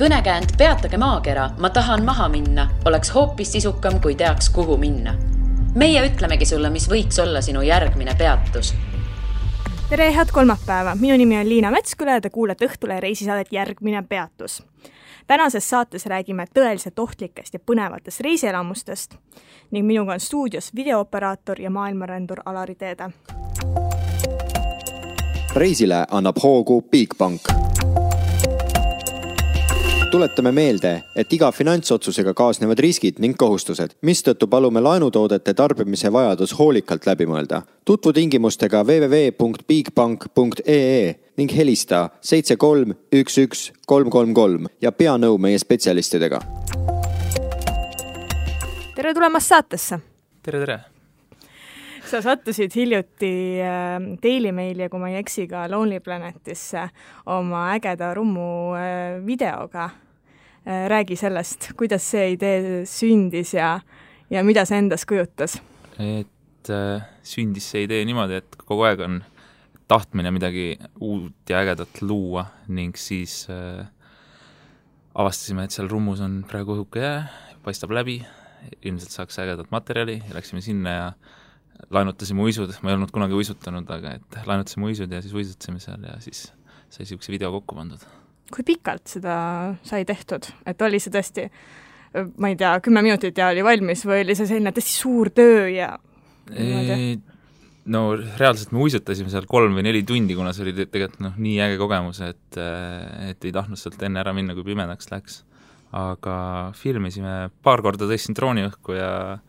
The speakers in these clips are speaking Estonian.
Kõnekäänd Peatage maakera, ma tahan maha minna, oleks hoopis sisukam, kui teaks, kuhu minna. Meie ütlemegi sulle, mis võiks olla sinu järgmine peatus. Tere, head kolmapäeva! Minu nimi on Liina Metsküla ja te kuulete Õhtule reisisaadet Järgmine peatus. Tänases saates räägime tõeliselt ohtlikest ja põnevatest reisielamustest ning minuga on stuudios videooperaator ja maailmarändur Alari Teede. Reisile annab hoogu Bigbank. Tuletame meelde, et iga finantsotsusega kaasnevad riskid ning kohustused, mistõttu palume laenutoodete tarbimise vajadus hoolikalt läbi mõelda. Tutvu tingimustega www.bigbank.ee ning helista 7311 333 ja pea nõu meie spetsialistidega. Tere tulemast saatesse! Tere! Sa sattusid hiljuti Daily Maili ja kui ma ei eksi ka Lonely Planetisse oma ägeda rummu videoga. Räägi sellest, kuidas see idee sündis ja mida see endas kujutas? Et sündis see idee niimoodi, et kogu aeg on tahtmine midagi uut ja ägedat luua ning siis avastasime, et seal rummus on praegu õhuke jää, paistab läbi, ilmselt saaks ägedat materjali ja läksime sinna ja laenutasime uisud, ma ei olnud kunagi uisutanud, aga et laenutasime uisud ja siis uisutasime seal ja siis sai siukse video kokku pandud. Kui pikalt seda sai tehtud? Et oli see tõesti, ma ei tea, 10 minutit ja oli valmis või oli see selline tõesti suur töö ja... No reaalselt me uisutasime seal 3 või 4 tundi, kuna see oli tegelikult nii äge kogemus, et ei tahtnud sealt enne ära minna, kui pimedaks läks. Aga filmisime paar korda tõstin drooni õhku ja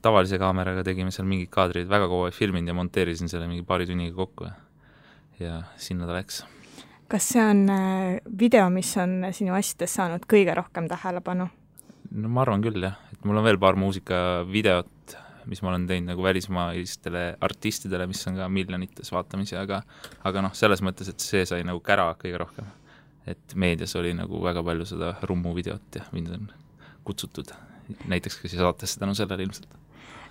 tavalise kaameraga tegime seal mingid kaadrid, väga kogu aeg filminud ja monteerisin selle mingi paari tunniga kokku ja sinna ta läks. Kas see on video, mis on sinu asjades saanud kõige rohkem tähelepanu? No ma arvan küll, jah. Et mul on veel paar muusikavideot, mis ma olen teinud nagu välismaistele artistidele, mis on ka miljonites vaatamisi, aga selles mõttes, et see sai nagu kära kõige rohkem. Et meedias oli nagu väga palju seda rummu videot ja mind on kutsutud näiteks ka siis saatesse tänu sellele ilmselt.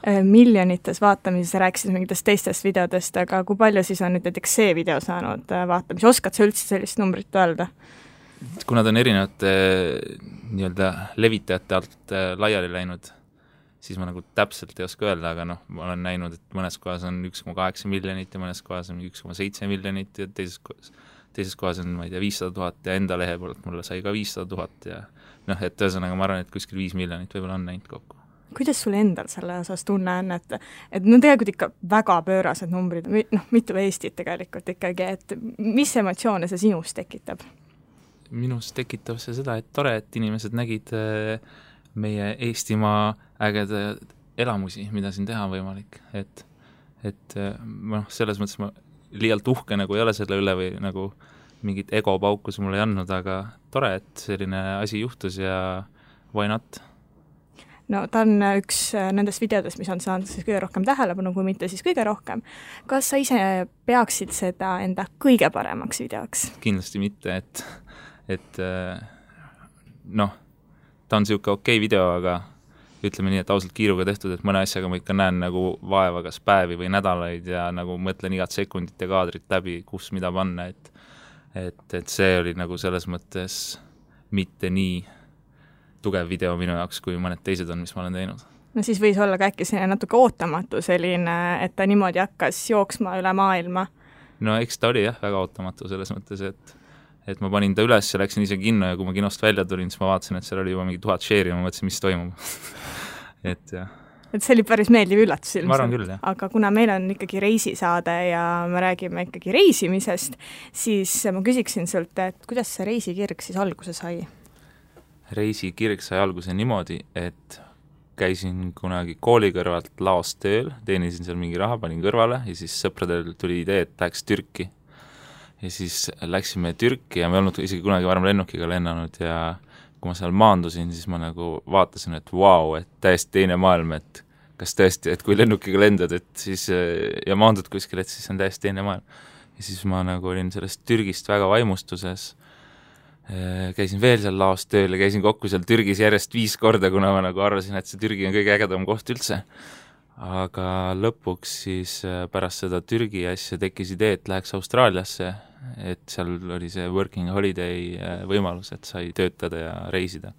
Miljonites vaatamises rääkisid mingitest teistest videodest, aga kui palju siis on nüüd näiteks see video saanud vaatamisi? Oskad sa üldse sellist numbrit öelda? Kuna ta on erinevate nii-öelda levitajate alt laiali läinud, siis ma nagu täpselt ei oska öelda, aga ma olen näinud, et mõnes kohas on 1,8 miljonit ja mõnes kohas on 1,7 miljonit ja teises kohas on, ma ei tea, 500 000 ja enda lehe poolt mulle sai ka 500 000 ja et ühesõnaga ma arvan, et kuskil 5 miljonit võib-olla on näinud kokku. Kuidas sul endal selle osas tunne on, et tegelikult ikka väga pöörased numbrid, mitu Eestit tegelikult ikkagi, et mis emotsioone see sinus tekitab? Minus tekitab see seda, et tore, et inimesed nägid meie Eestimaa ägeda elamusi, mida siin teha on võimalik. Et selles mõttes ma liialt uhke nagu ei ole selle üle või nagu mingit egopaukus mulle ei andnud, aga tore, et selline asi juhtus ja why not? No ta on üks nendest videodest, mis on saanud siis kõige rohkem tähelepanu, kui mitte siis kõige rohkem. Kas sa ise peaksid seda enda kõige paremaks videoks? Kindlasti mitte, et ta on siuke okei video, aga ütleme nii, et ausalt kiiruga tehtud, et mõne asjaga ma ikka näen nagu vaeva kas päevi või nädalaid ja nagu mõtlen igat sekundit ja kaadrit läbi, kus mida panna, et see oli nagu selles mõttes mitte nii tugev video minu jaoks, kui mõned teised on, mis ma olen teinud. No siis võis olla ka äkki selline natuke ootamatu selline, et ta niimoodi hakkas jooksma üle maailma. No eks ta oli jah, väga ootamatu selles mõttes, et ma panin ta üles ja läksin ise kinno ja kui ma kinost välja tulin, siis ma vaatasin, et seal oli juba mingi 1000 share'i ja ma mõtlesin, mis toimub. Et jah. Et see oli päris meeldiv üllatus ilmselt. Ma arvan küll, jah. Aga kuna meil on ikkagi reisisaade ja me räägime ikkagi reisimisest, siis ma küsiksin sult, et kuidas see reisikirg siis alguse sai? Reisikirg sai alguse niimoodi, et käisin kunagi kooli kõrvalt laos tööl, teenisin seal mingi raha, panin kõrvale ja siis sõpradel tuli idee, et läheks Türki. Ja siis läksime Türki ja me olnud isegi kunagi varem lennukiga lennanud ja kui ma seal maandusin, siis ma nagu vaatasin, et vau, et täiesti teine maailm, et kas tõesti, et kui lennukiga lendad, et siis ja maandud kuskil, et siis on täiesti teine maailm. Ja siis ma nagu olin sellest Türgist väga vaimustuses, käisin veel seal laos tööl ja käisin kokku seal Türgis järjest 5 korda, kuna ma nagu arvasin, et see Türgi on kõige ägedam koht üldse. aga lõpuks siis pärast seda Türgi asja tekkis idee, et läheks Austraaliasse, et seal oli see working holiday võimalus, et sai töötada ja reisida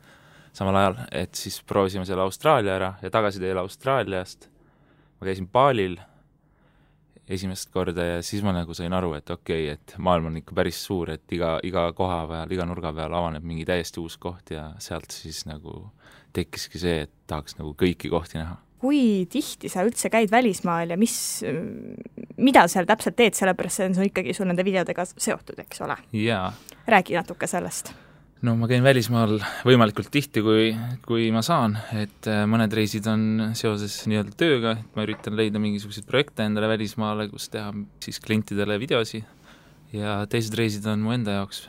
samal ajal, et siis proovisime selle Austraalia ära ja tagasi teele Austraaliast ma käisin Balil esimest korda ja siis ma nagu sain aru, et okei, et maailm on ikka päris suur, et iga koha peal, iga nurga peal avaneb mingi täiesti uus koht ja sealt siis nagu tekkiski see, et tahaks nagu kõiki kohti näha. Kui tihti sa üldse käid välismaal ja mida seal täpselt teed, sellepärast see on ikkagi sul nende videodega seotud, eks ole? Jaa. Räägi natuke sellest. No ma käin välismaal võimalikult tihti, kui ma saan, et mõned reisid on seoses nii-öelda tööga, et ma üritan leida mingisuguseid projekte endale välismaale, kus teha siis klientidele videosi ja teised reisid on mu enda jaoks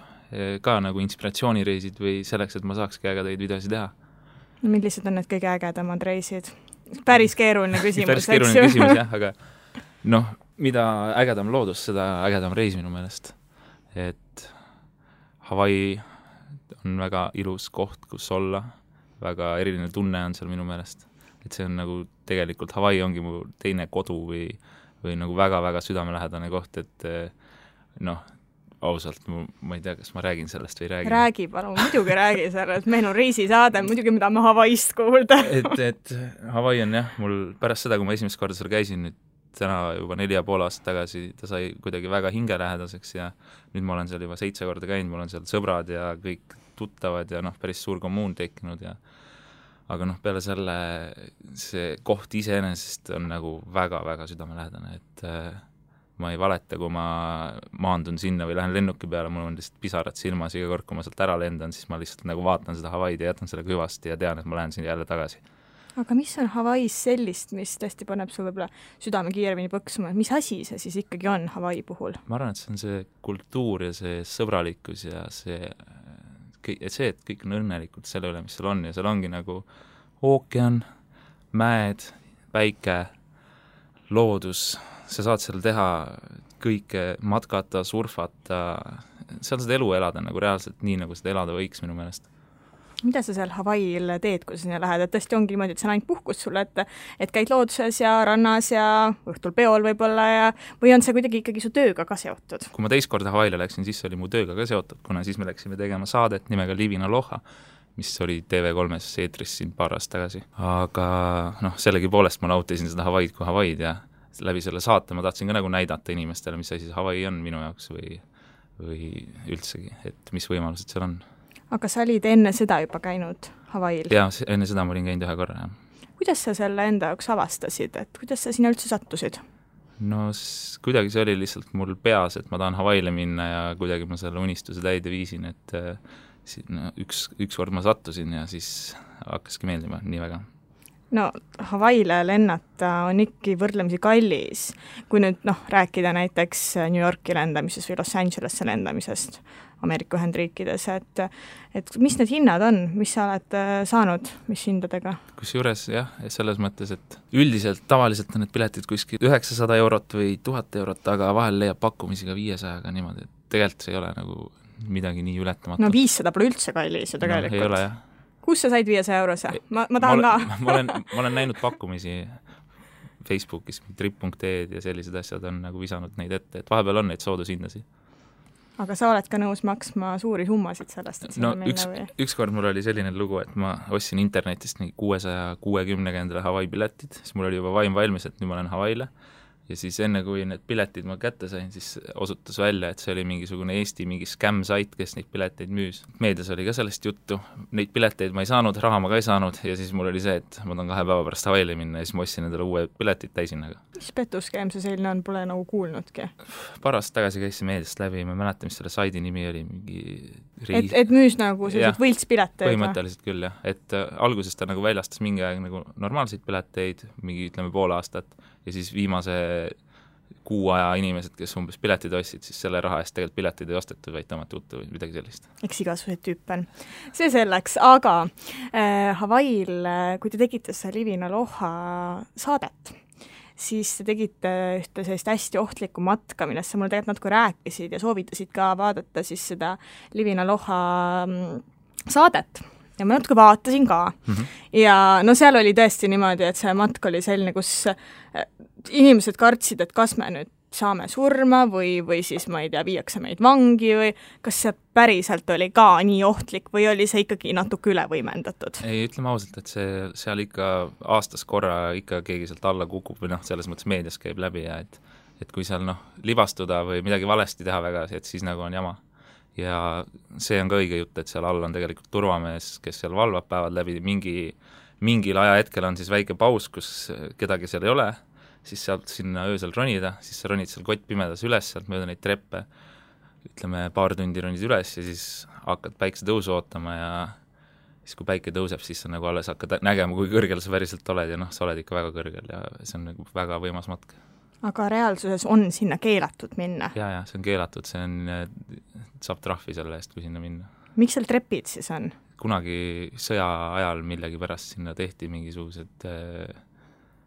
ka nagu inspiratsioonireisid või selleks, et ma saakski ägedaid videosi teha. Millised on need kõige ägedamad reisid? Päris keeruline küsimus, päris keeruline küsimus, jah, aga noh, mida ägedam loodus, seda ägedam reis minu meelest. Et Hawaii on väga ilus koht, kus olla, väga eriline tunne on seal minu meelest. Et see on nagu tegelikult Hawaii ongi mu teine kodu või nagu väga-väga südamelähedane koht, et noh, ausalt, ma ei tea, kas ma räägin sellest või räägin. Räägi, palun, muidugi räägi sellest, meil on reisisaade, muidugi mida me Hawaiist kuulda. et Hawaii on jah, mul pärast seda, kui ma esimest korda seal käisin, nüüd täna juba 4,5 aastat tagasi, ta sai kuidagi väga hingelähedaseks ja nüüd ma olen seal juba 7 korda käinud, mul on seal sõbrad ja kõik tuttavad ja noh, päris suur kommuun tekkinud ja aga noh, peale selle see koht iseenesest on nagu väga-väga südamelähedane, et ma ei valeta, kui ma maandun sinna või lähen lennuki peale, mul on lihtsalt pisarad silmas iga kord, kui ma sealt ära lendan, siis ma lihtsalt nagu vaatan seda Hawaiid ja jätan selle hüvasti ja tean, et ma lähen sinna jälle tagasi. Aga mis on Hawaiis sellist, mis tõesti paneb sul võib-olla südame kiiremini põksuma, mis asi see siis ikkagi on Hawaii puhul? Ma arvan, et see on see kultuur ja see sõbralikkus ja see, et kõik on õnnelikult selle üle, mis seal on ja seal ongi nagu ookean, mäed, päike, loodus, sa saad seal teha kõike, matkata, surfata, seal seda elu elada nagu reaalselt nii, nagu seda elada võiks minu meelest. Mida sa seal Hawaiil teed, kui sa sinna lähed, et tõesti ongi niimoodi, et see on ainult puhkus sulle, et käid looduses ja rannas ja õhtul peol võib-olla ja või on see kuidagi ikkagi su tööga ka seotud? Kui ma teist korda Hawaiile läksin, siis oli mu tööga ka seotud, kuna siis me läksime tegema saadet nimega Living Aloha, mis oli TV3-s eetris siin paar aastat tagasi. Aga noh, sellegipoolest ma nautisin seda Hawaiid kui Hawaiid ja läbi selle saate ma tahtsin ka nagu näidata inimestele, mis asi Hawaii on minu jaoks või üldsegi, et mis võimalused seal on. Aga sa olid enne seda juba käinud Hawaiil? Jaa, enne seda ma olin käinud 1 korra, jah. Kuidas sa selle enda jaoks avastasid, et kuidas sa sinna üldse sattusid? No kuidagi see oli lihtsalt mul peas, et ma tahan Hawaiile minna ja kuidagi ma selle unistuse täide viisin, et üks kord ma sattusin ja siis hakkaski meeldima nii väga. No Hawaiile lennata on ikka võrdlemisi kallis, kui nüüd rääkida näiteks New Yorki lendamisest või Los Angelesse lendamisest Ameerika Ühendriikides, et mis need hinnad on, mis sa oled saanud, mis hindadega? Kusjuures jah, selles mõttes, et üldiselt tavaliselt on need piletid kuskil 900 eurot või 1000 eurot, aga vahel leiab pakkumisi ka 500-ga niimoodi, et tegelikult see ei ole nagu midagi nii ületamatu. No 500 pole üldse kallis ju tegelikult. No, ei ole jah. Kus sa said 500 eurose? Ma tahan ka. ma olen näinud pakkumisi Facebookis, trip.ee ja sellised asjad on nagu visanud neid ette, et vahepeal on neid soodushindasid. Aga sa oled ka nõus maksma suuri summasid sellest, et no ükskord mul oli selline lugu, et ma ostsin internetist 660 endale Hawaii piletid, siis mul oli juba vaim valmis, et nüüd ma olen Hawaiile ja siis enne, kui need piletid ma kätte sain, siis osutus välja, et see oli mingisugune Eesti mingi scam-sait, kes neid pileteid müüs. Meedias oli ka sellest juttu, neid pileteid ma ei saanud, raha ma ka ei saanud ja siis mul oli see, et ma tahan 2 päeva pärast Hawaiile minna ja siis ma ostsin endale uue piletid täisinnaga. Mis petuskeem see selline on, pole nagu kuulnudki? Paar aastat tagasi käisin meediast läbi, ma mäletan, mis selle saidi nimi oli, mingi et müüs nagu sellised võltspileteid? Põhimõtteliselt küll, jah. Et alguses ta nagu väljastas mingi aeg nagu normaalseid pileteid, mingi ütleme pool aastat ja siis viimase kuu aja inimesed, kes umbes piletid ostsid, siis selle raha eest tegelikult piletid ei ostetud, vaid tõmmati uttu või midagi sellist. Eks igasuguseid tüüpe on. See selleks, aga Hawaiil, kui te tegite seda Living Aloha saadet, siis te tegite ühte sellist hästi ohtlikku matka, millest sa mulle tegelikult natuke rääkisid ja soovitasid ka vaadata siis seda Living Aloha saadet. ja ma natuke vaatasin ka. Ja no seal oli tõesti niimoodi, et see matk oli selline, kus inimesed kartsid, et kas me nüüd saame surma või siis, ma ei tea, viiakse meid vangi või kas see päriselt oli ka nii ohtlik või oli see ikkagi natuke üle võimendatud? Ei, ütleme ausalt, et seal ikka aastas korra ikka keegi sealt alla kukub või selles mõttes meedias käib läbi ja et kui seal libastuda või midagi valesti teha väga, et siis nagu on jama. Ja see on ka õige jutt, et seal all on tegelikult turvamees, kes seal valvab päevad läbi, mingil ajahetkel on siis väike paus, kus kedagi seal ei ole, siis sealt sinna öösel ronida, siis sa ronid seal kott pimedas üles, sealt mööda neid treppe, ütleme paar tundi ronid üles ja siis hakkad päikse tõusu ootama ja siis kui päike tõuseb, siis sa nagu alles hakkad nägema, kui kõrgel sa päriselt oled ja sa oled ikka väga kõrgel ja see on nagu väga võimas matk. Aga reaalsuses on sinna keelatud minna? Ja, see on keelatud, saab trahvi selle eest, kui sinna minna. Miks seal trepid siis on? Kunagi sõja ajal millegi pärast sinna tehti mingisugused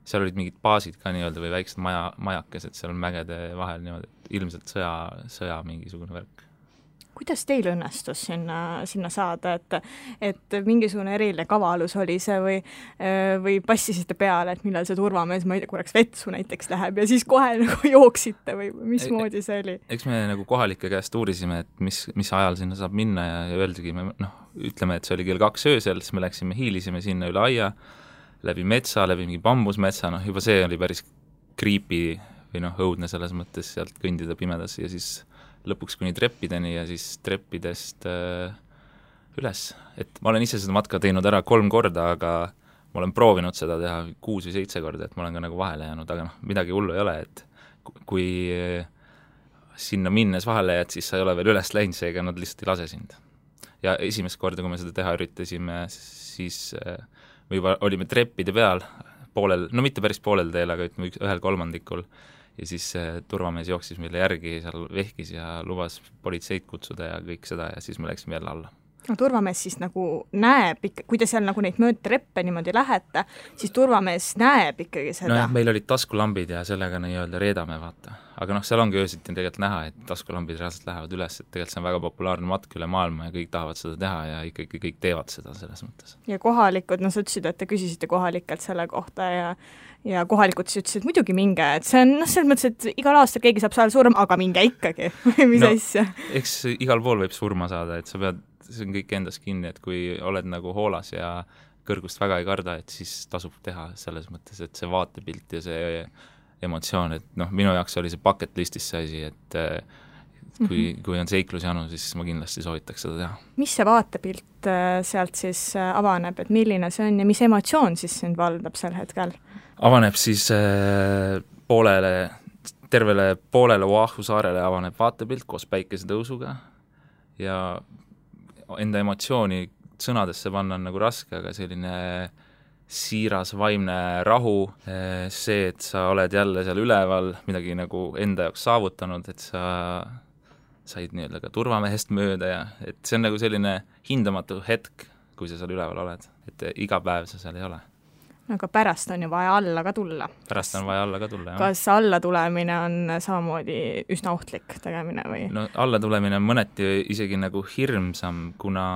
seal olid mingid baasid ka nii-öelda või väiksed majakesed seal mägede vahel niimoodi, ilmselt sõja mingisugune värk. Kuidas teil õnnestus sinna saada, et mingisugune eriline kavalus oli see või passisite peale, et millal see turvamees, ma ei tea, korraks vetsu näiteks läheb ja siis kohe nagu jooksite või mismoodi see oli? Eks me nagu kohalike käest uurisime, et mis ajal sinna saab minna ja öeldigi, ütleme, et see oli kell 2 öösel, siis me läksime, hiilisime sinna üle aia, läbi metsa, läbi mingi bambusmetsa, juba see oli päris creepy või õudne selles mõttes sealt kõndida pimedas ja siis lõpuks kuni treppideni ja siis treppidest üles. Et ma olen ise seda matka teinud ära 3 korda, aga ma olen proovinud seda teha 6 või 7 korda, et ma olen ka nagu vahele jäänud, aga midagi hullu ei ole, et kui sinna minnes vahele jääd, siis sa ei ole veel üles läinud, seega nad lihtsalt ei lase sind. Ja esimest korda, kui me seda teha üritasime, siis või olime treppide peal poolel, mitte päris poolel teel, aga ütleme 1/3 ja siis turvamees jooksis meile järgi, seal vehkis ja lubas politseid kutsuda ja kõik seda ja siis me läksime jälle alla. No turvamees siis nagu näeb ikka, kui te seal nagu neid mööda treppe niimoodi lähete, siis turvamees näeb ikkagi seda. No meil olid taskulambid ja sellega nii-öelda reedame, vaata. Aga seal ongi öösiti tegelikult näha, et taskulambid reaalselt lähevad üles, et tegelikult see on väga populaarne matk üle maailma ja kõik tahavad seda teha ja ikkagi kõik teevad seda selles mõttes. Ja kohalikud, sa ütlesid, et te küsisite kohalikelt selle kohta ja kohalikud siis ütlesid, muidugi minge, et see on selles mõttes, et igal aastal keegi saab seal surma, aga minge ikkagi, või mis asja? Eks igal pool võib surma saada, et sa pead, see on kõik endas kinni, et kui oled nagu hoolas ja kõrgust väga ei karda, et siis tasub teha selles mõttes, et see vaatepilt ja see emotsioon, et minu jaoks oli see bucket listis see asi, et kui on seiklusjanu, siis ma kindlasti soovitaks seda teha. Mis see vaatepilt sealt siis avaneb, et milline see on ja mis emotsioon siis sind valdab sel hetkel? Avaneb siis tervele poolele Oahu saarele avaneb vaatepilt koos päikesetõusuga ja enda emotsiooni sõnadesse panna on nagu raske, aga selline siiras vaimne rahu, see, et sa oled jälle seal üleval, midagi nagu enda jaoks saavutanud, et sa said nii-öelda ka turvamehest mööda ja et see on nagu selline hindamatu hetk, kui sa seal üleval oled, et iga päev sa seal ei ole. Aga pärast on ju vaja alla ka tulla. Pärast on vaja alla ka tulla, jah. Kas alla tulemine on samamoodi üsna ohtlik tegemine või? No alla tulemine on mõneti isegi nagu hirmsam, kuna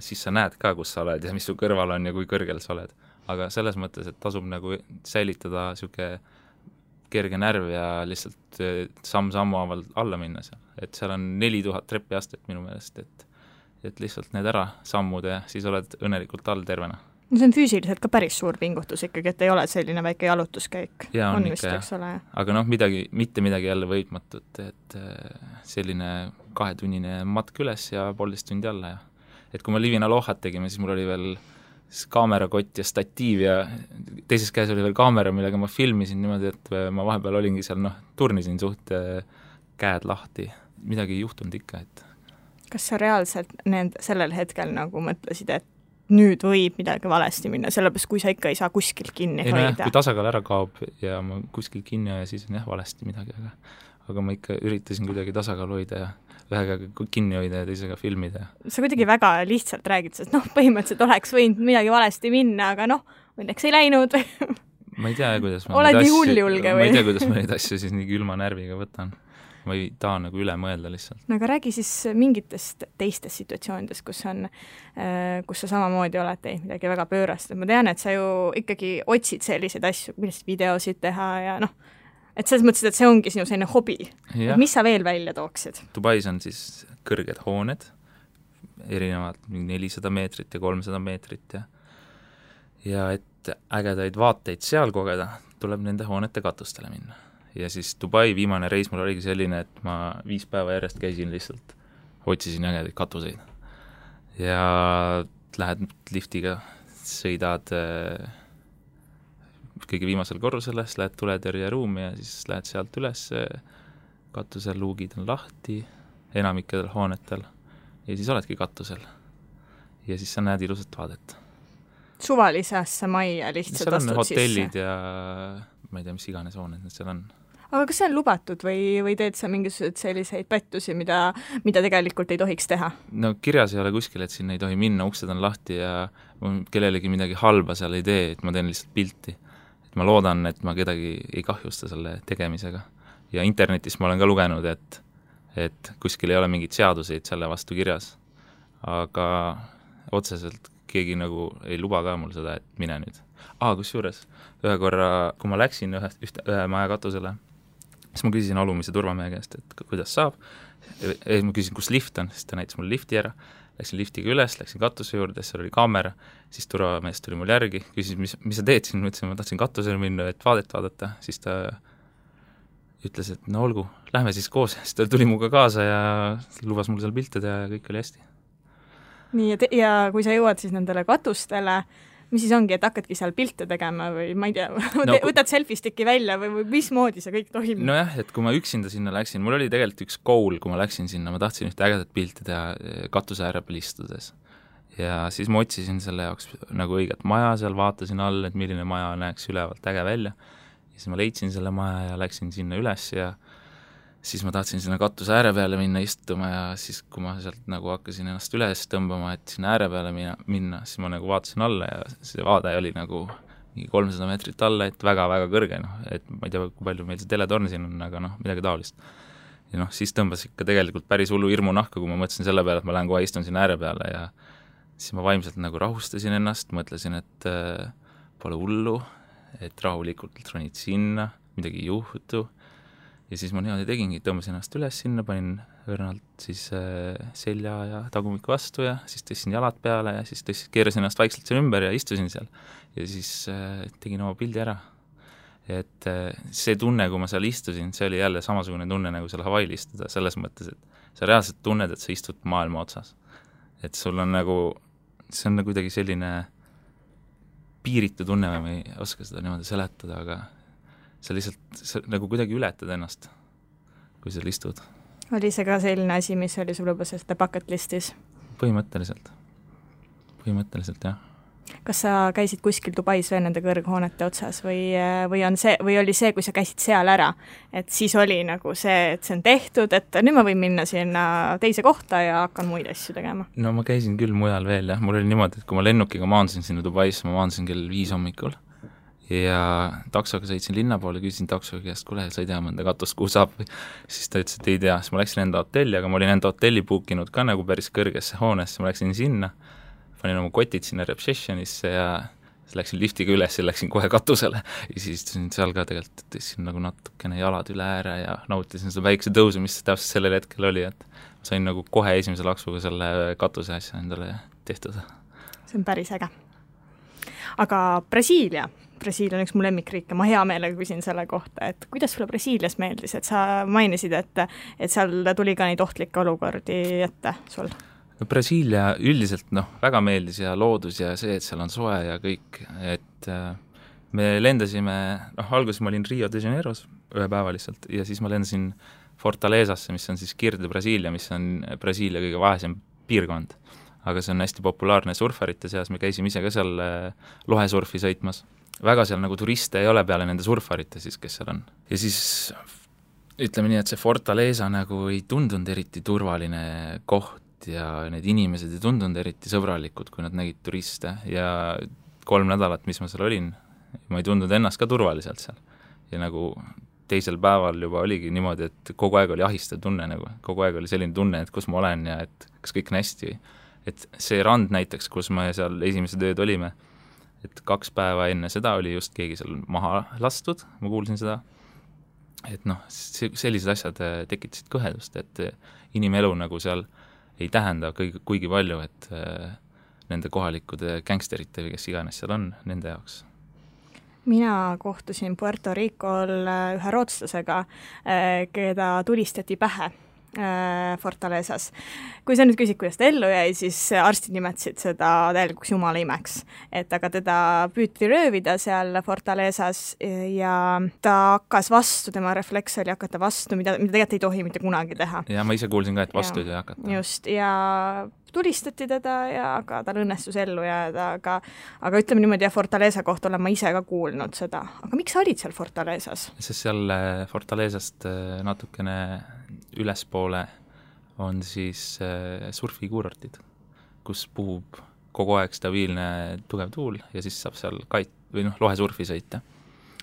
siis sa näed ka, kus sa oled ja mis su kõrval on ja kui kõrgel sa oled. Aga selles mõttes, et tasub nagu säilitada siuke kerge närv ja lihtsalt samm-sammu alla minna seal. Et seal on 4000 trepiastet minu meelest, et lihtsalt need ära sammud ja siis oled õnnelikult all tervena. No see on füüsiliselt ka päris suur pingutus ikkagi, et ei ole selline väike jalutuskäik. Ja on ikka, jah. Aga mitte midagi jälle võitmatut, et selline 2-tunnine matk üles ja 1,5 tundi alla. Ja. Et kui me Livina Lohat tegime, siis mul oli veel kaamerakott ja statiiv ja teises käes oli veel kaamera, millega ma filmisin niimoodi, et ma vahepeal olingi seal, turnisin suht käed lahti. Midagi ei juhtunud ikka, et. Kas sa reaalselt sellel hetkel nagu mõtlesid, et nüüd võib midagi valesti minna, sellepärast kui sa ikka ei saa kuskil kinni hoida? Kui tasakaal ära kaob ja ma kuskil kinni ja siis on valesti midagi, aga ma ikka üritasin kuidagi tasakaal hoida ja ühega kinni hoida ja teisega filmida. Sa kuidagi väga lihtsalt räägid, sest põhimõtteliselt oleks võinud midagi valesti minna, aga õnneks ei läinud. Ma ei tea, kuidas oled nii hulljulge või? Ma ei tea, kuidas ma neid asju siis nii külma närviga võtan. ma ei taha nagu üle mõelda lihtsalt. No aga räägi siis mingitest teistest situatsioonidest, kus sa samamoodi oled teinud midagi väga pöörast. Ma tean, et sa ju ikkagi otsid selliseid asju, millest videosid teha ja et selles mõttes, et see ongi sinu selline hobi. Mis sa veel välja tooksid? Dubais on siis kõrged hooned, erinevad 400 meetrit ja 300 meetrit ja et ägedaid vaateid seal kogeda, tuleb nende hoonete katustele minna. Ja siis Dubai viimane reis mul oligi selline, et ma 5 päeva järjest käisin lihtsalt, otsisin ägedaid katuseid. Ja lähed liftiga, sõidad kõige viimasel korrusele, siis lähed tuletõrje ruumi ja siis lähed sealt üles, katusel luugid on lahti, enamikedel hoonetel ja siis oledki katusel. Ja siis sa näed ilusat vaadet. Suvalise majja lihtsalt astud sisse? Seal on hotellid ja ma ei tea, mis iganes hooned need seal on. Aga kas see on lubatud või teed sa mingisugused selliseid pettusi, mida tegelikult ei tohiks teha? No kirjas ei ole kuskil, et sinna ei tohi minna, uksed on lahti ja kellelegi midagi halba seal ei tee, et ma teen lihtsalt pilti. Et ma loodan, et ma kedagi ei kahjusta selle tegemisega. Ja internetis ma olen ka lugenud, et kuskil ei ole mingid seaduseid selle vastu kirjas. Aga otseselt keegi nagu ei luba ka mul seda, et mine nüüd. Kusjuures, ühe korra, kui ma läksin ühe maja katusele, siis ma küsisin alumise turvamehe käest, et kuidas saab. Ma küsisin, kus lift on, siis ta näitas mul lifti ära. Läksin liftiga üles, läksin katuse juurde, seal oli kaamera, siis turvamees tuli mul järgi, küsis, mis sa teed siin, ma ütlesin, ma tahtsin katusele minna, et vaadet vaadata, siis ta ütles, et no olgu, lähme siis koos, siis ta tuli muga kaasa ja lubas mul seal pilte teha ja kõik oli hästi. Nii, ja kui sa jõuad siis nendele katustele, mis siis ongi, et hakkadki seal pilte tegema või ma ei tea, võtad selfie-sticki välja või mismoodi see kõik toimub? Nojah, et kui ma üksinda sinna läksin, mul oli tegelikult üks goal, kui ma läksin sinna, ma tahtsin ühte ägedat pilti teha katuse ääre peal istudes. Ja siis ma otsisin selle jaoks nagu õiget maja seal, vaatasin all, et milline maja näeks ülevalt äge välja. Ja siis ma leidsin selle maja ja läksin sinna üles ja siis ma tahtsin sinna katuse ääre peale minna istuma ja siis, kui ma sealt nagu hakkasin ennast üles tõmbama, et sinna ääre peale minna, siis ma nagu vaatasin alla ja see vaade oli nagu 300 meetrit alla, et väga-väga kõrge, et ma ei tea, kui palju meil see teletorn siin on, aga midagi taolist. Ja siis tõmbas ikka tegelikult päris hullu hirmu nahka, kui ma mõtlesin selle peale, et ma lähen kohe istun sinna ääre peale ja siis ma vaimselt nagu rahustasin ennast, mõtlesin, et pole hullu, et rahulikult ronid sinna, midagi ei juhtu. Ja siis ma niimoodi tegingi, tõmbasin ennast üles sinna, panin õrnalt siis selja ja tagumikku vastu ja siis tõstsin jalad peale ja siis keerasin ennast vaikselt seal ümber ja istusin seal. Ja siis tegin oma pildi ära. Et see tunne, kui ma seal istusin, see oli jälle samasugune tunne, nagu seal Hawaii'l istuda, selles mõttes, et sa reaalselt tunned, et sa istud maailma otsas. Et sul on nagu, see on nagu kuidagi selline piiritu tunne, ma ei oska seda niimoodi seletada, aga sa lihtsalt nagu kuidagi ületad ennast, kui seal istud. Oli see ka selline asi, mis oli sul juba selle bucket listis? Põhimõtteliselt, jah. Kas sa käisid kuskil Dubais veel nende kõrghoonete otsas või oli see, kui sa käisid seal ära, et siis oli nagu see, et see on tehtud, et nüüd ma võin minna sinna teise kohta ja hakkan muid asju tegema? No ma käisin küll mujal veel, jah. Mul oli niimoodi, et kui ma lennukiga maandusin sinna Dubais, ma maandusin kell 5 hommikul ja taksoga sõitsin linna poole, küsisin taksoga käest, kuule, sa ei tea mõnda katust, kuhu saab või siis ta ütles, et ei tea, siis ma läksin enda hotelli, aga ma olin enda hotelli bookinud ka nagu päris kõrgesse hoonesse, ma läksin sinna, panin oma kotid sinna receptionisse ja siis läksin liftiga üles ja läksin kohe katusele ja siis istusin seal ka tegelikult, tõstsin nagu natukene jalad üle ääre ja nautisin seda väikse tõusu, mis täpselt sellel hetkel oli, et ma sain nagu kohe esimese laksuga selle katuse asja endale tehtud. See on päris äge. Aga Brasiilia on üks mu lemmikriik ja ma hea meelega küsin selle kohta, et kuidas sulle Brasiilias meeldis, et sa mainisid, et seal tuli ka neid ohtlikke olukordi ette sul? No Brasiilia üldiselt väga meeldis ja loodus ja see, et seal on soe ja kõik, et me lendasime, alguses ma olin Rio de Janeiros ühe päeva lihtsalt ja siis ma lendasin Fortalezasse, mis on siis Kirde Brasiilia, mis on Brasiilia kõige vaesem piirkond, aga see on hästi populaarne surfarite seas, me käisime ise ka seal lohesurfi sõitmas. Väga seal nagu turiste ei ole peale nende surfarite siis, kes seal on. Ja siis ütleme nii, et see Fortaleza nagu ei tundunud eriti turvaline koht ja need inimesed ei tundunud eriti sõbralikud, kui nad nägid turiste ja 3 nädalat, mis ma seal olin, ma ei tundunud ennast ka turvaliselt seal. Ja nagu teisel päeval juba oligi niimoodi, et kogu aeg oli ahistav tunne nagu, kogu aeg oli selline tunne, et kus ma olen ja et kas kõik on hästi. Et see rand näiteks, kus me seal esimesed ööd olime, et 2 päeva enne seda oli just keegi seal maha lastud, ma kuulsin seda, et noh, sellised asjad tekitasid kõhedust, et inimelu nagu seal ei tähenda kuigi palju, et nende kohalikud gängsterite või kes iganes seal on, nende jaoks. Mina kohtusin Puerto Ricol ühe rootslasega, keda tulistati pähe Fortalezas. Kui sa nüüd küsid, kuidas ta ellu jäi, siis arstid nimetasid seda täielikuks jumala imeks. Et aga teda püüti röövida seal Fortalezas ja ta hakkas vastu, tema refleks oli hakata vastu, mida tegelikult ei tohi mitte kunagi teha. Ja ma ise kuulsin ka, et vastu ei hakata. Just, ja tulistati teda ja aga tal õnnestus ellu jääda, aga ütleme niimoodi, ja Fortaleza kohta olen ma ise ka kuulnud seda. Aga miks sa olid seal Fortalezas? Sest seal Fortalezast natukene ülespoole on siis surfikuurortid, kus puhub kogu aeg stabiilne tugev tuul ja siis saab seal lohesurfi sõita.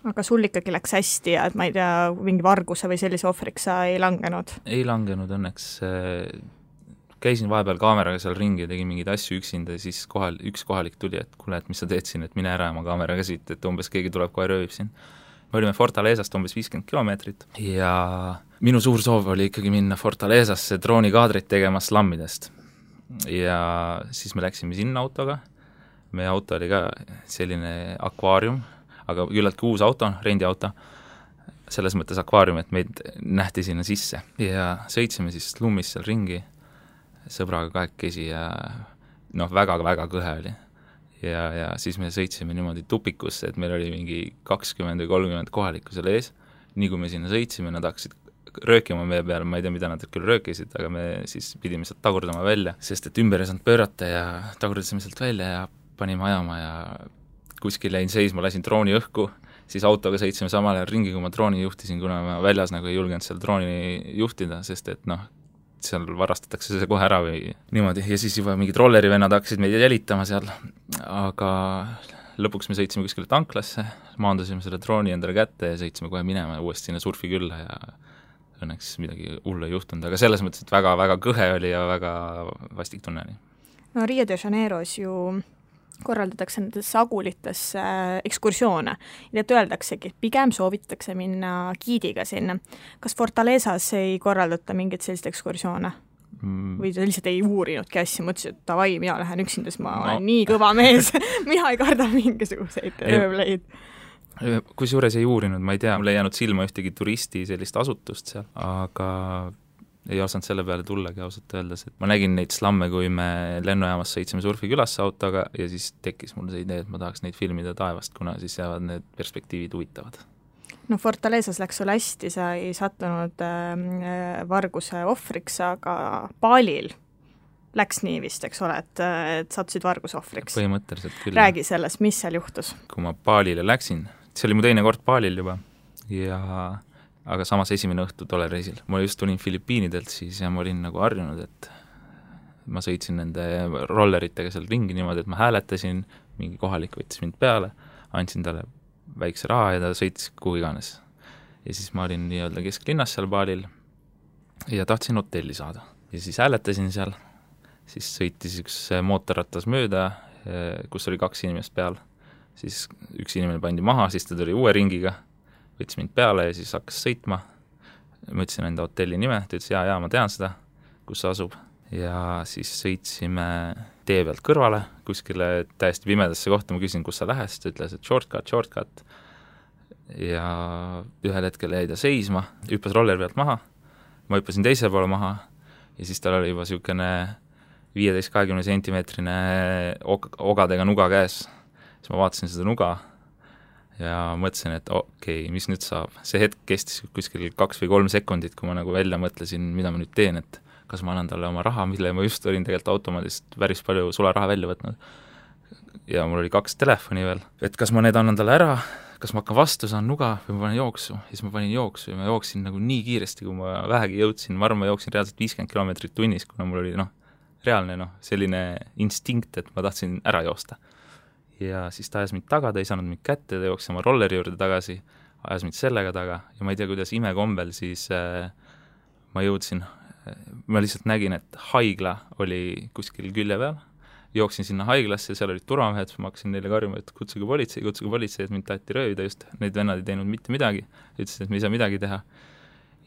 Aga sul ikkagi läks hästi ja et ma ei tea, mingi varguse või sellise ohvriks sa ei langenud? Ei langenud õnneks. Käisin vahepeal kaameraga seal ringi ja tegin mingeid asju üksinda ja siis üks kohalik tuli, et kuule, et mis sa teed siin, et mine ära oma kaameraga siit, et umbes keegi tuleb kohe röövib siin. Me olime Fortalezast umbes 50 kilomeetrit ja minu suur soov oli ikkagi minna Fortalezasse droonikaadrit tegema slammidest. Ja siis me läksime sinna autoga. Meie auto oli ka selline akvaarium, aga küllaltki uus auto, rendiauto, selles mõttes akvaarium, et meid nähti sinna sisse. Ja sõitsime siis lummis seal ringi sõbraga kahekesi ja väga-väga kõhe oli. Ja siis me sõitsime niimoodi tupikusse, et meil oli mingi 20 või 30 kohalikku seal ees. Nii kui me sinna sõitsime, nad hakkasid röökima meie peale, ma ei tea, mida nad küll röökisid, aga me siis pidime sealt tagurdama välja, sest et ümber ei saanud pöörata ja tagurdasime sealt välja ja panime ajama ja kuskil jäin seisma, lasin drooni õhku, siis autoga sõitsime samal ajal ringi, kui ma drooni juhtisin, kuna ma väljas nagu ei julgenud seal drooni juhtida, sest et seal varastatakse see kohe ära või niimoodi ja siis juba mingid rollerivennad hakkasid meid jälitama seal, aga lõpuks me sõitsime kuskile tanklasse, maandusime selle drooni endale kätte ja sõitsime kohe minema uuesti sinna surfi külla ja õnneks midagi hullu ei juhtunud, aga selles mõttes, et väga-väga kõhe oli ja väga vastik tunne oli. No Rio de Janeiros ju korraldatakse nendes sagulitesse ekskursioone ja et öeldaksegi, et pigem soovitatakse minna giidiga sinna. Kas Fortalezas ei korraldata mingit sellist ekskursioone? Või sa lihtsalt ei uurinudki asja, mõtlesid, et davai, mina lähen üksinda, siis ma olen nii kõva mees, mina ei karda mingisuguseid röövleid. Kusjuures ei uurinud, ma ei tea, mul ei jäänud silma ühtegi turisti sellist asutust seal, aga ei osanud selle peale tullagi ausalt öeldes, et ma nägin neid slamme, kui me lennujaamas sõitsime surfikülasse autoga ja siis tekkis mul see idee, et ma tahaks neid filmida taevast, kuna siis jäävad need perspektiivid huvitavad. No Fortalezas läks sul hästi, sa ei sattunud varguse ohvriks, aga Balil läks nii vist, eks ole, et sattusid varguse ohvriks. Põhimõtteliselt küll. Räägi sellest, mis seal juhtus? Kui ma Balile läksin, see oli mu teine kord Balil juba aga samas esimene õhtu tolle reisil. Ma just tulin Filipiinidelt siis ja ma olin nagu harjunud, et ma sõitsin nende rolleritega seal ringi niimoodi, et ma hääletasin, mingi kohalik võttis mind peale, andsin talle väikse raha ja ta sõitis kuhu iganes. Ja siis ma olin nii-öelda kesklinnas seal Balil ja tahtsin hotelli saada. Ja siis hääletasin seal, siis sõitis üks mootorrattas mööda, kus oli 2 inimest peal. Siis üks inimene pandi maha, siis ta tuli uue ringiga, võttis mind peale ja siis hakkas sõitma. Ma ütlesin enda hotelli nime, ta ütles, jaa, ma tean seda, kus see asub. Ja siis sõitsime tee pealt kõrvale, kuskile täiesti pimedasse kohta, ma küsin, kus sa lähes, ta ütles, et shortcut. Ja ühel hetkel jäi ta seisma, hüppas roller pealt maha, ma hüppasin teise poole maha ja siis tal oli juba niisugune 15-20 sentimeetrine ogadega nuga käes. Siis ma vaatasin seda nuga ja mõtlesin, et okei, mis nüüd saab. See hetk kestis kuskil 2 või 3 sekundit, kui ma nagu välja mõtlesin, mida ma nüüd teen, et kas ma annan talle oma raha, mille ma just olin tegelikult automaadist päris palju sularaha välja võtnud. Ja mul oli 2 telefoni veel, et kas ma need annan talle ära, kas ma hakkan vastu, saan nuga või ma panen jooksu. Ja siis ma panin jooksu ja ma jooksin nagu nii kiiresti, kui ma vähegi jõudsin. Ma arvan, ma jooksin reaalselt 50 kilomeetrit tunnis, kuna mul oli reaalne selline instinkt, et ma tahtsin ära joosta. Ja siis ta ajas mind taga, ta ei saanud mind kätte, ta jooksis oma rolleri juurde tagasi, ajas mind sellega taga ja ma ei tea, kuidas imekombel siis ma jõudsin, ma lihtsalt nägin, et haigla oli kuskil külje peal, jooksin sinna haiglasse, seal olid turvamehed, ma hakkasin neile karjuma, et kutsuge politsei, et mind taheti röövida just, need vennad ei teinud mitte midagi, ütlesid, et me ei saa midagi teha.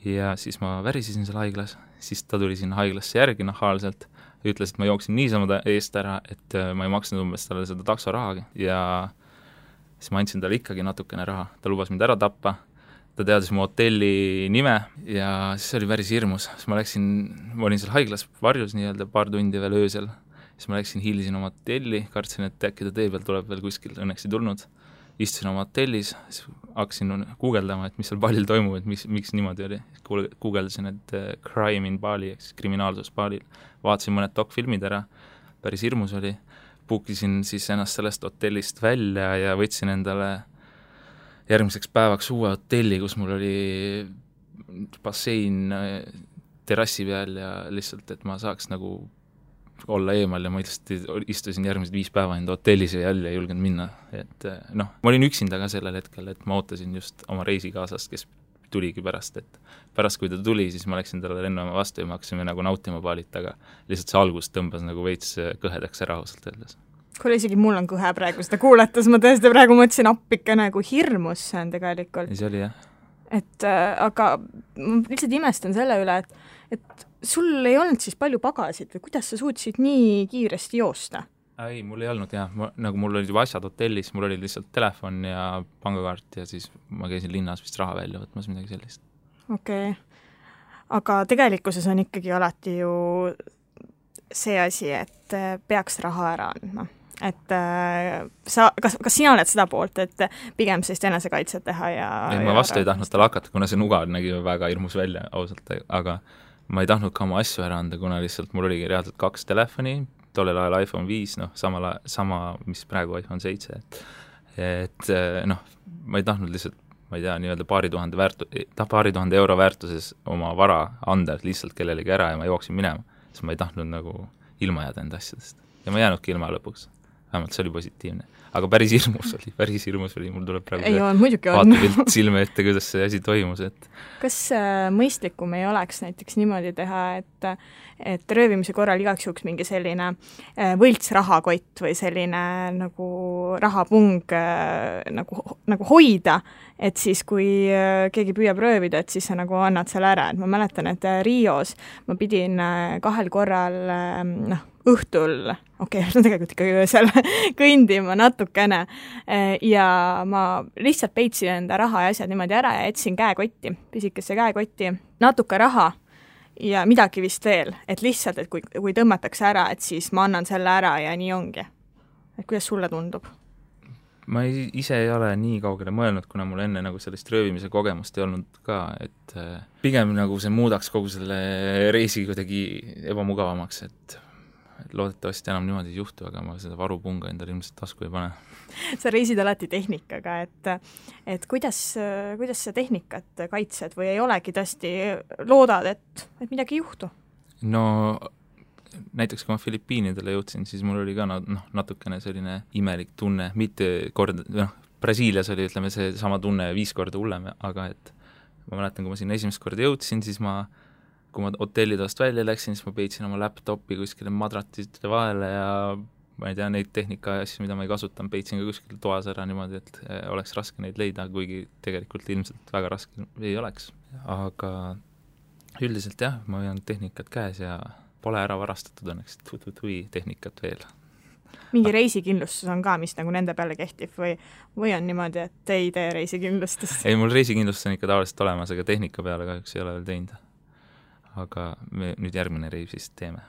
Ja siis ma värisisin seal haiglas, siis ta tuli sinna haiglasse järgi nahaalselt ja ütles, et ma jooksin niisama eest ära, et ma ei maksnud umbes talle seda taksorahagi ja siis ma andsin talle ikkagi natukene raha, ta lubas mind ära tappa, ta teadis mu hotelli nime ja siis oli päris hirmus, siis ma olin seal haiglas varjus nii-öelda paar tundi veel öösel, siis ma hilisin oma hotelli, kartsin, et äkki ta tee peal tuleb veel kuskil, õnneks ei tulnud, istusin oma hotellis, siis hakkasin guugeldama, et mis seal Balil toimub, et miks niimoodi oli, guugeldasin, et crime in Bali, ehk siis kriminaalsus Balil, vaatasin mõned dokfilmid ära, päris hirmus oli, puukisin siis ennast sellest hotellist välja ja võtsin endale järgmiseks päevaks uue hotelli, kus mul oli bassein terrassi peal ja lihtsalt, et ma saaks nagu olla eemal ja ma lihtsalt istusin järgmised 5 päeva enda hotellis ja jälle ei julgenud minna, et noh, ma olin üksinda ka sellel hetkel, et ma ootasin just oma reisikaasast, kes tuligi pärast, et pärast kui ta tuli, siis ma läksin talle lennama vastu ja me hakkasime nagu nautima Balit, aga lihtsalt see algus tõmbas nagu veits kõhedaks ära ausalt öeldes. Kuule, isegi mul on kõhe praegu seda kuulates, ma tõesti praegu mõtlesin appike nagu hirmus see on tegelikult. See oli jah. Et aga ma lihtsalt imestan selle üle, et sul ei olnud siis palju pagasid või kuidas sa suutsid nii kiiresti joosta? Ei, mul ei olnud jah, nagu mul olid juba asjad hotellis, mul oli lihtsalt telefon ja pangakaart ja siis ma käisin linnas vist raha välja võtmas midagi sellist. Okei. Aga tegelikkuses on ikkagi alati ju see asi, et peaks raha ära andma. Et kas sina oled seda poolt, et pigem sellist enesekaitset teha ja... Ei, ma vastu ei tahtnud tal hakata, kuna see nuga nägi väga hirmus välja ausalt, aga ma ei tahtnud ka oma asju ära anda, kuna lihtsalt mul oligi reaalselt 2 telefoni, tollel ajal iPhone 5, noh, sama, mis praegu iPhone 7, et noh, ma ei tahtnud lihtsalt, ma ei tea, nii-öelda paari tuhande euro väärtuses oma vara anda lihtsalt kellelegi ära ja ma jooksin minema, siis ma ei tahtnud nagu ilma jääda enda asjadest. Ja ma jäänudki ilma lõpuks. Vähemalt see oli positiivne. Aga päris hirmus oli, mul tuleb praegu vaatepilt silme ette, kuidas see asi toimus. Et... Kas mõistlikum ei oleks näiteks niimoodi teha, et röövimise korral igaks juhuks mingi selline võlts rahakott või selline nagu rahapung nagu hoida, et siis kui keegi püüab röövida, et siis sa nagu annad selle ära. Et ma mäletan, et Rios ma pidin 2 korral õhtul, tegelikult ikka öösel kõndima natukene ja ma lihtsalt peitsin enda raha ja asjad niimoodi ära ja jätsin käekotti, pisikesse käekotti, natuke raha ja midagi vist veel, et lihtsalt, et kui tõmmatakse ära, et siis ma annan selle ära ja nii ongi. Et kuidas sulle tundub? Ma ise ei ole nii kaugele mõelnud, kuna mul enne nagu sellist röövimise kogemust ei olnud ka, et pigem nagu see muudaks kogu selle reisi kuidagi ebamugavamaks, et loodetavasti enam niimoodi ei juhtu, aga ma seda varupunga endale ilmselt tasku ei pane. Sa reisid alati tehnikaga, et kuidas sa tehnikat kaitsed või ei olegi tõesti loodad, et midagi ei juhtu? No näiteks kui ma Filipiinidele jõudsin, siis mul oli ka natukene selline imelik tunne, mitte Brasiilias oli, ütleme, see sama tunne 5 korda hullem, aga et ma mäletan, kui ma sinna esimest korda jõudsin, siis kui ma hotellidest välja läksin, siis ma peitsin oma laptopi kuskile madratiste vahele ja ma ei tea, neid tehnika asju, mida ma ei kasutan, peitsin ka kuskil toas ära niimoodi, et oleks raske neid leida, kuigi tegelikult ilmselt väga raske ei oleks. Aga üldiselt jah, ma hoian tehnikat käes ja pole ära varastatud õnneks tehnikat veel. Mingi reisikindlustus on ka, mis nagu nende peale kehtib või on niimoodi, et ei tee reisikindlustust? Ei, mul reisikindlustus on ikka tavaliselt olemas, aga tehnika peale kahjuks ei ole veel teinud. Aga me nüüd järgmine reis siis teeme.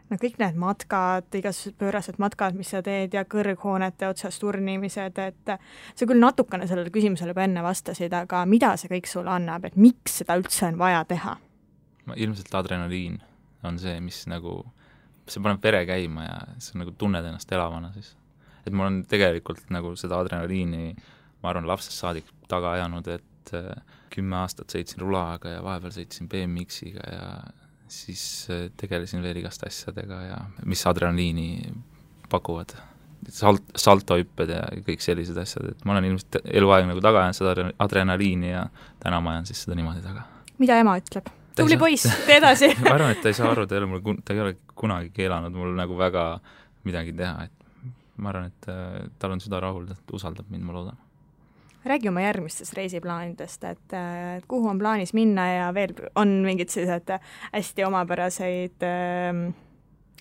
No kõik need matkad, igasugused pöörased matkad, mis sa teed ja kõrghoonete otsas turnimised, et sa küll natukene sellele küsimusele juba enne vastasid, aga mida see kõik sulle annab, et miks seda üldse on vaja teha? Ilmselt adrenaliin on see, mis nagu, see paneb vere käima ja see nagu tunned ennast elavana siis. Et mul on tegelikult nagu seda adrenaliini, ma arvan, lapsest saadik taga ajanud, et 10 aastat sõitsin rulaaga ja vahepeal sõitsin BMX-iga ja siis tegelesin veel igast asjadega ja mis adrenaliini pakuvad. saltohüpped ja kõik sellised asjad, et ma olen ilmselt eluaeg nagu taga jäänud seda adrenaliini ja täna ma jään siis seda niimoodi taga. Mida ema ütleb? Tubli poiss, tee edasi! Ma arvan, et ta ei saa aru, ta ei ole kunagi keelanud mul nagu väga midagi teha, et ma arvan, et tal on süda rahul, et usaldab mind, ma loodan. Räägi oma järgmistest reisiplaanidest, et kuhu on plaanis minna ja veel on mingid sellised hästi omapäraseid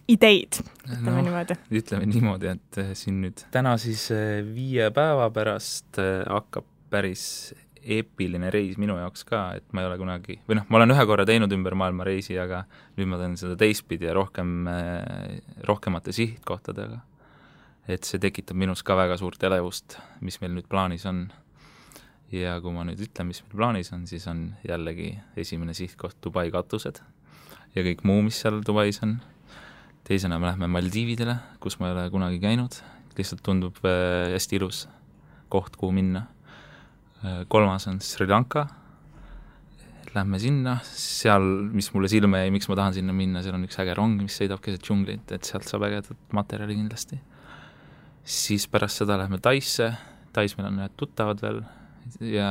ideid, ütleme niimoodi. Ütleme niimoodi, et siin nüüd täna siis 5 päeva pärast hakkab päris eepiline reis minu jaoks ka, et ma ei ole kunagi, või ma olen ühe korra teinud ümber maailma reisi, aga nüüd ma teen seda teistpidi ja rohkemate sihtkohtadega. Et see tekitab minus ka väga suurt elevust, mis meil nüüd plaanis on. Ja kui ma nüüd ütlen, mis meil plaanis on, siis on jällegi esimene sihtkoht Dubai katused ja kõik muu, mis seal Dubais on. Teisena me lähme Maldiividele, kus ma ei ole kunagi käinud, lihtsalt tundub hästi ilus koht, kuhu minna. 3. on Sri Lanka, lähme sinna, seal, mis mulle silme jäi, miks ma tahan sinna minna, seal on üks äge rong, mis sõidab keset džunglit, et sealt saab ägedat materjali kindlasti. Siis pärast seda lähme Taisse, Tais meil on ühed tuttavad veel ja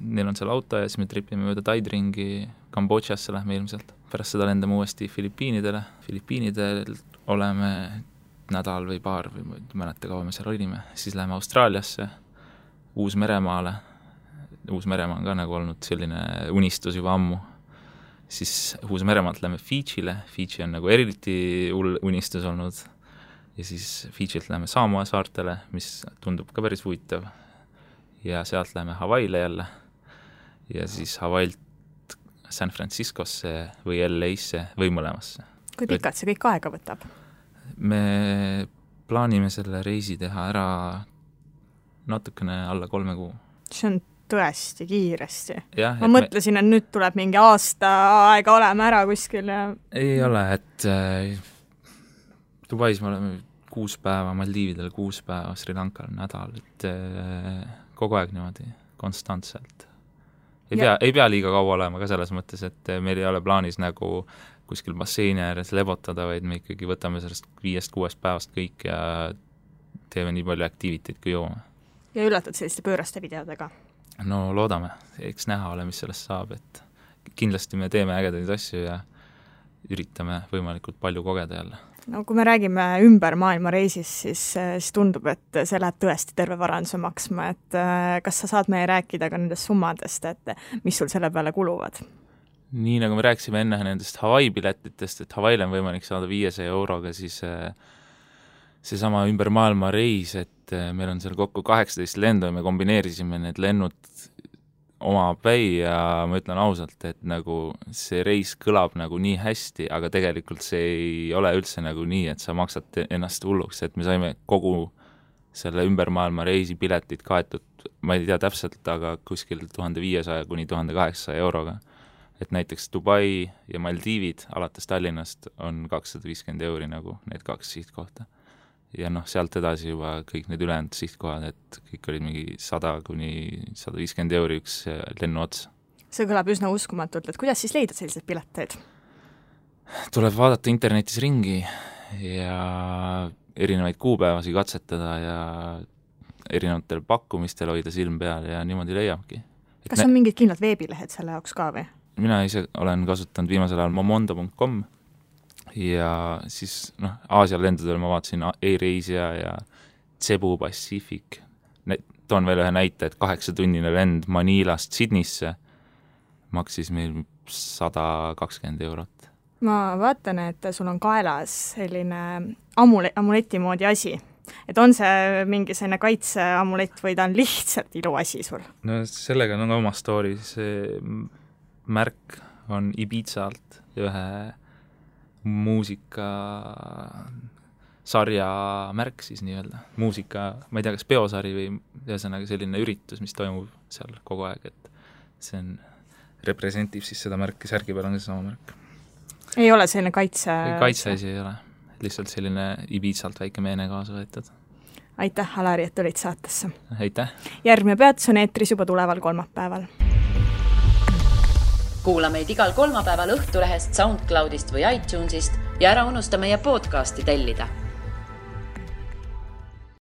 neil on seal auto ja siis me tripime mööda Taid ringi, Kambodžasse lähme ilmselt. Pärast seda lendame uuesti Filipiinidele, Filipiinidel oleme nädal või paar või mäleta kaua me seal olime, siis läheme Austraaliasse, Uus-Meremaale. Uus-Meremaa on ka nagu olnud selline unistus juba ammu. Siis Uus-Meremaalt lähme Fidžile, Fidži on nagu eriti unistus olnud ja siis Fidžilt lähme Samoa saartele, mis tundub ka päris huvitav ja sealt lähme Hawaiile jälle ja siis Hawaiilt San Franciscosse või LA-sse või mõlemasse. Kui pikalt see kõik aega võtab? Me plaanime selle reisi teha ära natukene alla 3 kuu. See on tõesti kiiresti. Ja, ma mõtlesin, et nüüd tuleb mingi aasta aega olema ära kuskil ja... Ei ole, et Dubais me oleme 6 päeva, Maldiividel 6 päeva, Sri Lankal nädal, et kogu aeg niimoodi konstantselt. Ei pea liiga kaua olema ka selles mõttes, et meil ei ole plaanis nagu kuskil basseini ääres lebotada, vaid me ikkagi võtame sellest 5-6 päevast kõik ja teeme nii palju aktiiviteid kui joome. Ja üllatad selliste pööraste videodega? No loodame, eks näha ole, mis sellest saab, et kindlasti me teeme ägedaid asju ja üritame võimalikult palju kogeda jälle. No kui me räägime ümber maailma reisis, siis tundub, et see läheb tõesti terve varanduse maksma, et kas sa saad meie rääkida ka nendest summadest, et mis sul selle peale kuluvad? Nii nagu me rääksime enne nendest Hawaii piletitest, et Hawaiile on võimalik saada 500 euroga, siis seesama ümber maailma reis, et meil on seal kokku 18 lendu ja me kombineerisime need lennud oma päi ja ma ütlen ausalt, et nagu see reis kõlab nagu nii hästi, aga tegelikult see ei ole üldse nagu nii, et sa maksad ennast hulluks, et me saime kogu selle ümber maailma reisi piletid kaetud, ma ei tea täpselt, aga kuskil 1500 kuni 1800 euroga. Et näiteks Dubai ja Maldiivid alates Tallinnast on 250 euri nagu need 2 sihtkohta. Ja sealt edasi juba kõik need ülejäänud sihtkohad, et kõik olid mingi 100 kuni 150 euri üks lennu ots. See kõlab üsna uskumatult, et kuidas siis leida sellised pileteid? Tuleb vaadata internetis ringi ja erinevaid kuupäevasi katsetada ja erinevatel pakkumistel hoida silm peal ja niimoodi leiabki. Kas on mingid kindlad veebilehed selle jaoks ka või? Mina ise olen kasutanud viimasel ajal momondo.com ja siis Aasia lendudel ma vaatasin Air-Asia ja Cebu Pacific. Toon veel ühe näite, et 8-tunnine lend Manilast Sydneysse maksis meil 120 eurot. Ma vaatan, et sul on kaelas selline amuleti moodi asi. Et on see mingi selline kaitseamulett või ta on lihtsalt iluasi sul? No sellega on oma story. See märk on Ibizalt ühe muusika sarja märk siis nii-öelda. Muusika, ma ei tea, kas peosari või ühesõnaga selline üritus, mis toimub seal kogu aeg, et see on representiiv siis seda märki, särgi peal on see sama märk. Ei ole selline kaitseasi ei ole, lihtsalt selline Ibizalt väike meene kaasa võetud. Aitäh, Alari, et olid saatesse. Aitäh. Järgmine peatus on eetris juba tuleval kolmapäeval. Kuula meid igal kolmapäeval Õhtulehest, SoundCloudist või iTunesist ja ära unusta meie podcasti tellida.